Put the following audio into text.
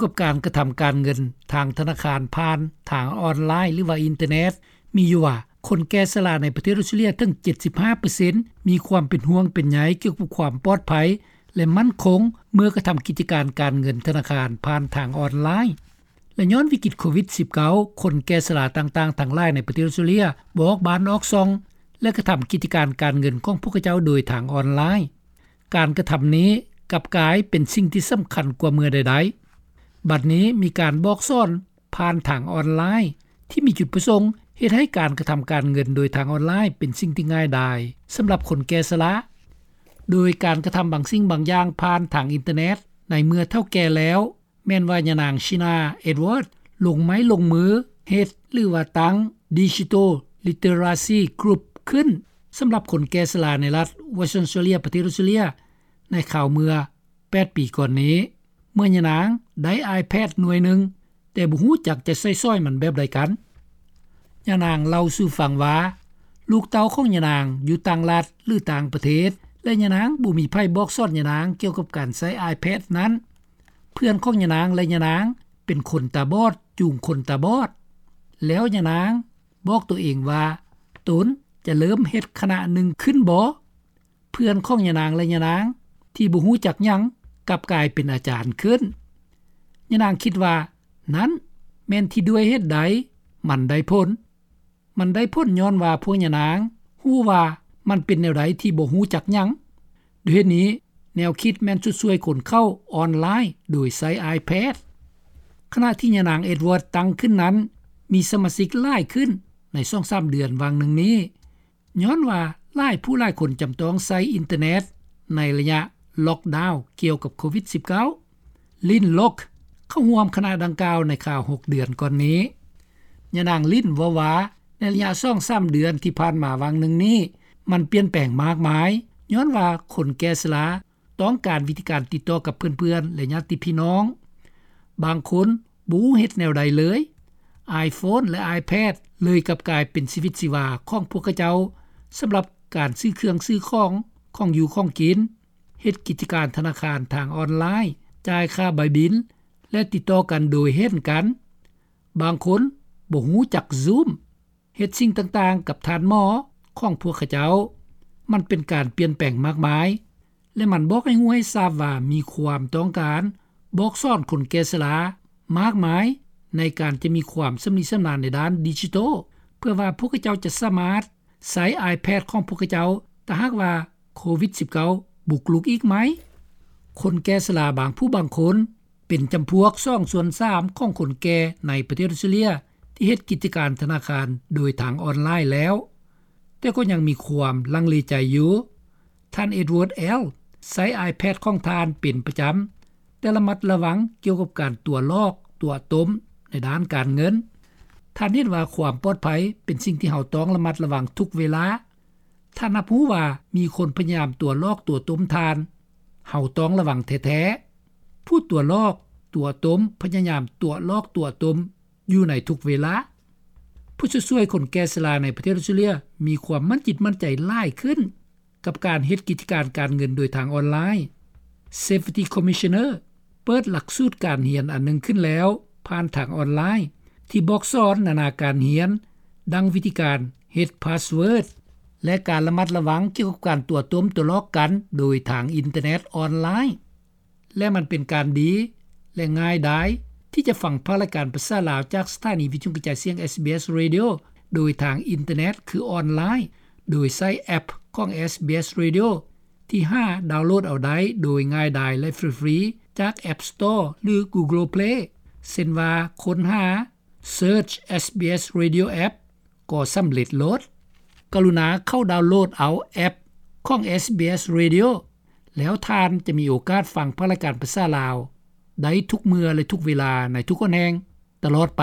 ກ່ຽວກັບການກະທຳການເງິນທາງທະນາຄານຜ່ານທາງອອນລາຍ ຫຼືວ່າອິນເຕີເນັດ ມີຢູ່ວ່າ ຄົນແກ່ຊະລາໃນປະເທດອອສເຕຣເລັຽເຖິງ ເຈັດສິບຫ້າເປີເຊັນ ມີຄວາມເປັນຫ່ວງເປັນໃຍກ່ຽວກັບຄວາມປອດໄພ ແລະ ໝັ້ນຄົງ ເມື່ອກະທຳກິດຈະການການເງິນທະນາຄານຜ່ານທາງອອນລາຍ. ແລະ ຍ້ອນວິກິດໂຄວິດ-ສິບເກົ້າ ຄົນແກ່ຊະລາຕ່າງໆທັງຫຼາຍໃນປະເທດອອສເຕຣເລັຽບໍ່ອອກບ້ານອອກຊ່ອງ ແລະ ກະທຳກິດຈະການການເງິນຂອງພວກເຂົາເຈົ້າໂດຍທາງອອນລາຍ. ການກະທຳນີ້ກັບກາຍເປັນສິ່ງທີ່ສຳຄັນກວ່າເມື່ອໃດໆ. ບັດນີ້ມີການບອກສອນຜ່ານທາງອອນລາຍ ທີ່ມີຈຸດປະສົງເຮັດໃຫ້ການກະທຳການເງິນໂດຍທາງອອນລາຍເປັນສິ່ງທີ່ງ່າຍດາຍສຳລັບຄົນແກ່ຊະລາ, ໂດຍການກະທຳບາງສິ່ງບາງຢ່າງຜ່ານທາງອິນເຕີເນັດ ໃນເມື່ອເຖົ້າແກ່ແລ້ວ ແມ່ນວ່າຍານາງ ຊີນາ ເອັດວາດ ລົງໄມ້ລົງມືເຮັດ ຫຼືວ່າຕັ້ງ ດິຈິຕອລລິເຕີຣາຊີກຣຸບ ຂຶ້ນ ສຳລັບຄົນແກ່ຊະລາໃນລັດເວສເທີນອອສເຕຣເລັຽ ປະເທດອອສເຕຣເລັຽ ໃນຄາວເມື່ອແປດປີກ່ອນນີ້ ເມື່ອຍານາງໄດ້ iPad ໜ່ວຍໜຶ່ງ ແຕ່ບໍ່ຮູ້ຈັກຈະໃຊ້ສອຍມັນແບບໃດກັນ. ຍານາງເລົ່າສູ່ຟັງວ່າ ລູກເຕົ້າຂອງຍານາງຢູ່ຕ່າງລັດ ຫຼື ຕ່າງປະເທດ ແລະ ຍານາງບໍ່ມີໃຜບອກສອນຍານາງກ່ຽວກັບການໃຊ້ iPad ນັ້ນ. ເພື່ອນຂອງຍານາງ ແລະ ຍານາງເປັນຄົນຕາບອດຈູງຄົນຕາບອດ, ແລ້ວຍານາງບອກໂຕເອງວ່າ ຕົນຈະເລີ່ມເຮັດຄະນະໜຶ່ງຂຶ້ນບໍ? ເພື່ອນຂອງຍານາງ ແລະ ຍານາງທີ່ບໍ່ຮູ້ຈັກຫຍັງ ກັບກາຍເປັນອາຈານຂຶ້ນ. ຍານາງຄິດວ່າ ນັ້ນແມ່ນທີ່ດ້ວຍເຫດໃດມັນໄດ້ຜົນ. ມັນໄດ້ຜົນຍ້ອນວ່າພວກຍານາງຮູ້ວ່າມັນເປັນແນວໃດທີ່ບໍ່ຮູ້ຈັກຫຍັງ. ດ້ວຍເຫດນີ້ ແນວຄິດແມ່ນຊຸດຊ່ວຍຄົນເຂົ້າອອນລາຍໂດຍໃຊ້ iPad. ຂະນະທີ່ຍານາງ ເອັດວາດ ຕັ້ງຂຶ້ນນັ້ນ ມີສະມາຊິກຫຼາຍຂຶ້ນໃນສອງສາມເດືອນຫວ່າງໜຶ່ງນີ້ ຍ້ອນວ່າຫຼາຍຜູ້ຫຼາຍຄົນຈຳຕ້ອງໃຊ້ອິນເຕີເນັດໃນໄລຍະລັອກດາວກ່ຽວກັບໂຄວິດ-ສິບເກົ້າ. ລິນ ລັອກ ເຂົ້າຮ່ວມຄະນະດັ່ງກ່າວໃນຄາວຫົກເດືອນກ່ອນນີ້. ຍານາງລິນເວົ້າວ່າ ໃນໄລຍະສອງສາມເດືອນທີ່ຜ່ານມາຫວ່າງໜຶ່ງນີ້ ມັນປ່ຽນແປງມາກມາຍ ຍ້ອນວ່າຄົນແກ່ຊະລາ ຕ້ອງການວິທີການຕິດຕໍ່ກັບເພື່ອນໆ ແລະ ຍາດຕິພີ່ນ້ອງ. ບາງຄົນບໍ່ຮູ້ເຮັດແນວໃດເລີຍ. iPhone ແລະ iPad ເລີຍກັບກາຍເປັນຊີວິດຊີວາຂອງພວກເຂົາເຈົ້າ ສຳລັບການຊື້ເຄື່ອງຊື້ຂອງ, ຂອງຢູ່ຂອງກິນ, ເຮັດກິດຈະການທະນາຄານທາງອອນລາຍ, ຈ່າຍຄ່າໃບບິນ ແລະ ຕິດຕໍ່ກັນໂດຍເຫັນກັນ. ບາງຄົນບໍ່ຮູ້ຈັກ Zoom. ເຮັດສິ່ງຕ່າງໆກັບທ່ານໝໍຂອງພວກເຂົາເຈົ້າ. ມັນເປັນການປ່ຽນແປງມາກມາຍ ແລະ ມັນບອກໃຫ້ຮູ້ໃຫ້ຊາບວ່າມີຄວາມຕ້ອງການບອກສອນຄົນແກ່ຊະລາມາກມາຍ ໃນການຈະມີຄວາມຊຳນິຊຳນານໃນດ້ານດິຈິຕອລ ເພື່ອວ່າພວກເຂົາເຈົ້າຈະສາມາດໃຊ້ iPad ຂອງພວກເຂົາເຈົ້າ ຖ້າຫາກວ່າໂຄວິດ-ສິບເກົ້າ ບຸກລຸກອີກໃໝ່. ຄົນແກ່ຊະລາບາງຜູ້ບາງຄົນ ເປັນຈຳພວກສອງສ່ວນສາມຂອງຄົນແກ່ໃນປະເທດອອສເຕຣເລັຽ ທີ່ເຮັດກິດຈະການທະນາຄານໂດຍທາງອອນລາຍແລ້ວ, ແຕ່ກໍຍັງມີຄວາມລັງເລໃຈຢູ່. ທ່ານ ເອັດວາດ ແອລ ໃຊ້ iPad ຂອງທ່ານເປັນປະຈຳ, ແຕ່ລະມັດລະວັງກ່ຽວກັບການຕົວະຫຼອກ, ຕົວະຕົ້ມໃນດ້ານການເງິນ. ທ່ານເຫັນວ່າຄວາມປອດໄພເປັນສິ່ງທີ່ເຮົາຕ້ອງລະມັດລະວັງທຸກເວລາ. ທ່ານຮັບຮູ້ວ່າມີຄົນພະຍາຍາມຕົວະຫຼອກຕົວະຕົ້ມທ່ານ. ເຮົາຕ້ອງລະວັງແທ້ໆ. ຜູ້ຕົວະຫຼອກ, ຕົວະຕົ້ມ, ພະຍາຍາມຕົວະຫຼອກຕົວະຕົ້ມຢູ່ໃນທຸກເວລາ. ຜູ້ຊ່ວຍໆຄົນແກ່ຊະລາໃນປະເທດອອສເຕຣເລັຽມີຄວາມໝັ້ນຈິດໝັ້ນໃຈຫຼາຍຂຶ້ນ ກັບການເຮັດກິດຈະການການເງິນໂດຍທາງອອນລາຍ. Safety Commissioner ເປີດຫຼັກສູດການຮຽນອັນໜຶ່ງຂຶ້ນແລ້ວ ຜ່ານທາງອອນລາຍ ທີ່ບອກສອນນານາການຮຽນ ດັ່ງວິທີການເຮັດພາສເວີດ ແລະ ການລະມັດລະວັງກ່ຽວກັບການຕົວະຕົ້ມຕົວະຫຼອກກັນໂດຍທາງອິນເຕີເນັດອອນລາຍ. ແລະ ມັນເປັນການດີ ແລະ ງ່າຍດາຍທີ່ຈະຟັງພາກລາຍການພາສາລາວຈາກສະຖານີວິທະຍຸກະຈາຍສຽງ SBS Radio ໂດຍທາງອິນເຕີເນັດ ຄືອອນລາຍ ໂດຍໃຊ້ແອັບຂອງ SBS Radio ທີ່ຫາດາວໂຫຼດເອົາໄດ້ໂດຍງ່າຍດາຍ ແລະ ຟຣີໆ ຈາກ App Store ຫຼື Google Play ເຊັ່ນວ່າ ຄົ້ນຫາ Search SBS Radio App ກໍສຳເລັດໂລດ. ກະລຸນາເຂົ້າດາວໂຫຼດເອົາແອັບຂອງ SBS Radio ແລ້ວທ່ານຈະມີໂອກາດຟັງພາກລາຍການພາສາລາວໄດ້ທຸກເມື່ອ ແລະ ທຸກເວລາໃນທຸກຫົນແຫ່ງຕະຫຼອດໄປ.